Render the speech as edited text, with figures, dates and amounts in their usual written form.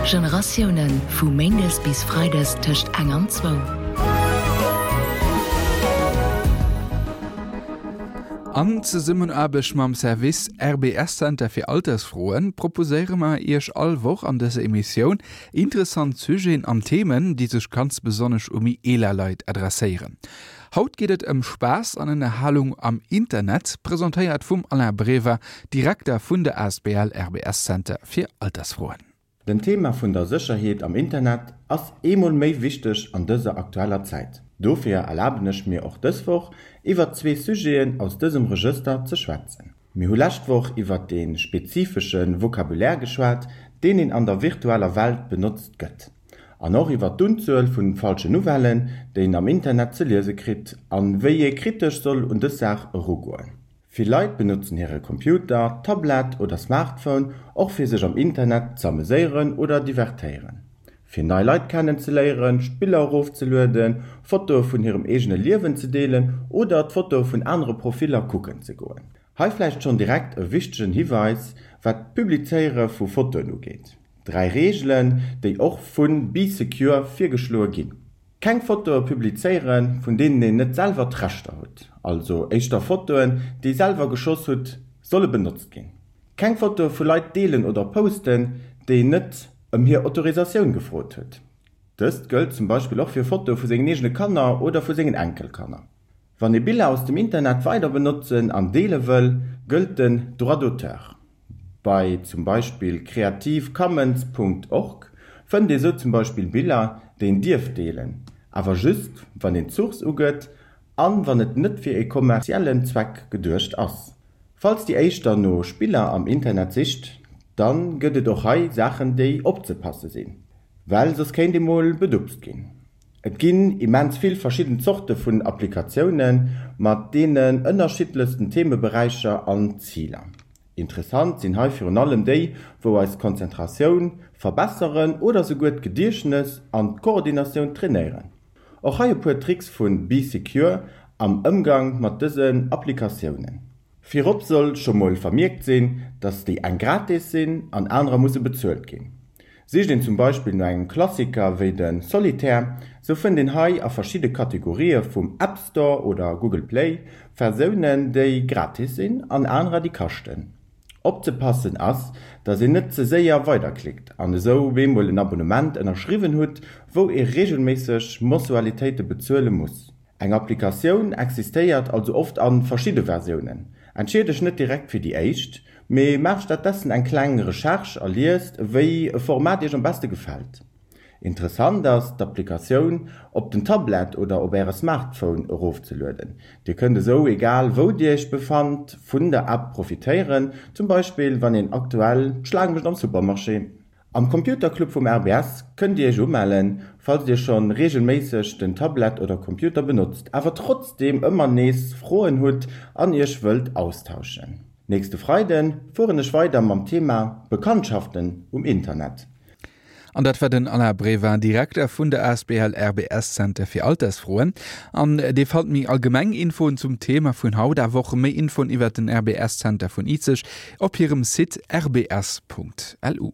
Generatiounen, vu méindes bis freides tëscht eng an zwou. An Zesummenaarbecht mam Service RBS Center fir Altersfroen proposéiere mer Iech all Woch an dëser Emissioun interessant Sujeten an Themen, déi sech ganz besonnesch u méi eeler Leit adresséieren. Haut geet et ëm Spaass an Ënnerhalung am Internet, presentéiert vum Alain Brever, Direkter vun der asbl RBS Center fir Altersfroen. Den Thema vun der Sécherheet am Internet ass eemol méi wichteg an dëser aktueller Zäit. Dofir erlaben ech mir och dës Woch iwwert zwee Sujeten aus dësem Regëster ze schwätzen. Mir hu lescht Woch iwwert dee spezifesche Vocabulaire geschwat, deen een an der virtueller Welt benotzt gëtt. An och iwwer d'Unzuel vun falschen Nouvellen, déi een am Internet ze liese kritt, an wéi ee kritesch soll un dës Saach erugoen. Vill Leit benotzen hire Computer, Tablett oder Smartphone och fir sech am Internet z'ameséieren oder divertéieren, fir nei Leit kennen ze léieren, Spiller erofzelueden, Fotoe vun hirem eegene Liewen ze deelen oder d'Fotoe vun anere Profiller kucken ze goen. Hei vläicht schonn direkt e wichtegen Hiweis wat d'Publizéiere vu Fotoen ugeet. Dräi Reegelen, déi och vu Bee Secure virgeschloe ginn. Keng Fotoe publizéieren, vun deenen een net selwer d'Rechter hutt, also éischter Fotoen, déi selwer geschoss hutt, solle benotzt ginn. Keng Fotoe vu Leit deelen oder posten, déi een net ëm hir Autorisatioun gefrot huet. Dëst gëllt zum Beispill och fir Fotoe vu sengen eegene Kanner oder vu sengen Enkelkanner. Wann ee Biller aus dem Internet weider benotzen an deele wëll, gëllt den Droit d'auteur. Bei zum Beispill creativecommons Punkt org fënnt ee sou zum Beispill Biller, déi een dierf deelen, awer just wann een d'Source ugëtt an wann et net fir ee kommerziellen Zweck geduecht ass. Falls dir éischter no Spiller am Internet sicht, dann gëtt et och hei Saachen déi opzepasse sinn, well soss kéint ee mol bedupst ginn. Et ginn immens vill verschidden Zorte vun Applikatioune mat deenen ënnerschiddlechsten Themeberäicher an Ziler. Interessant sinn hei virun allem déi, wou eis Konzentratioun verbesseren oder souguer d'Gediechtnes an d'Koordinatioun trainéieren. Och hei e puer Tricks vu Bee Secure am Ëmgang mat dësen Applikatiounen. Virop soll scho mol vermierkt sinn, dass déi eng gratis sinn an anerer musse bezuelt ginn. Sicht een zum Beispill no engem Klassiker wéi de Solitaire, sou fënnt een hei a verschidde Kategorië vum App Store oder Google Play Versiounen déi gratis sinn an anerer déi kaschten. Opzepassen ass, dass een net ze séier weiderklickt an esou bemol en Abonnement ënnerschriwwen hutt, wou ee reegelméisseg Mensualitéite bezuele muss. Eng Applikatioun existéiert also oft a verschidde Versiounen. Entscheet dech net direkt fir déi éischt, mee maach stattdessen eng kleng Recherche a liest, wéi e Format iech am beste gefält. Interessant ass, d'Applikatioun op den Tablet oder op äre Smartphone erofzelueden. Dir kënnt esou, egal wou dir iech befannt, vun der App profitéieren, zum Beispill wann een aktuell d'Schlaang mécht am Supermarché. Am Computerclub vum RBS kënnt Dir Iech umellen, falls Dir schonn reegelméisseg den Tablet oder Computer benotzt, awer trotzdeem ëmmer nees Froen hutt an Iech wëllt austauschen. Nächste Freiden fueren ech weider mam Thema Bekanntschaften um Internet. An dat war den Alain Brevin, Direkter vun der asbl RBS Center fir Altersfroen. An Dir fannt méi allgemeng Infoen zum Thema vun haut, awer och méi Infoen iwwert den RBS Center vun Izeg op hirem Site rbs.lu.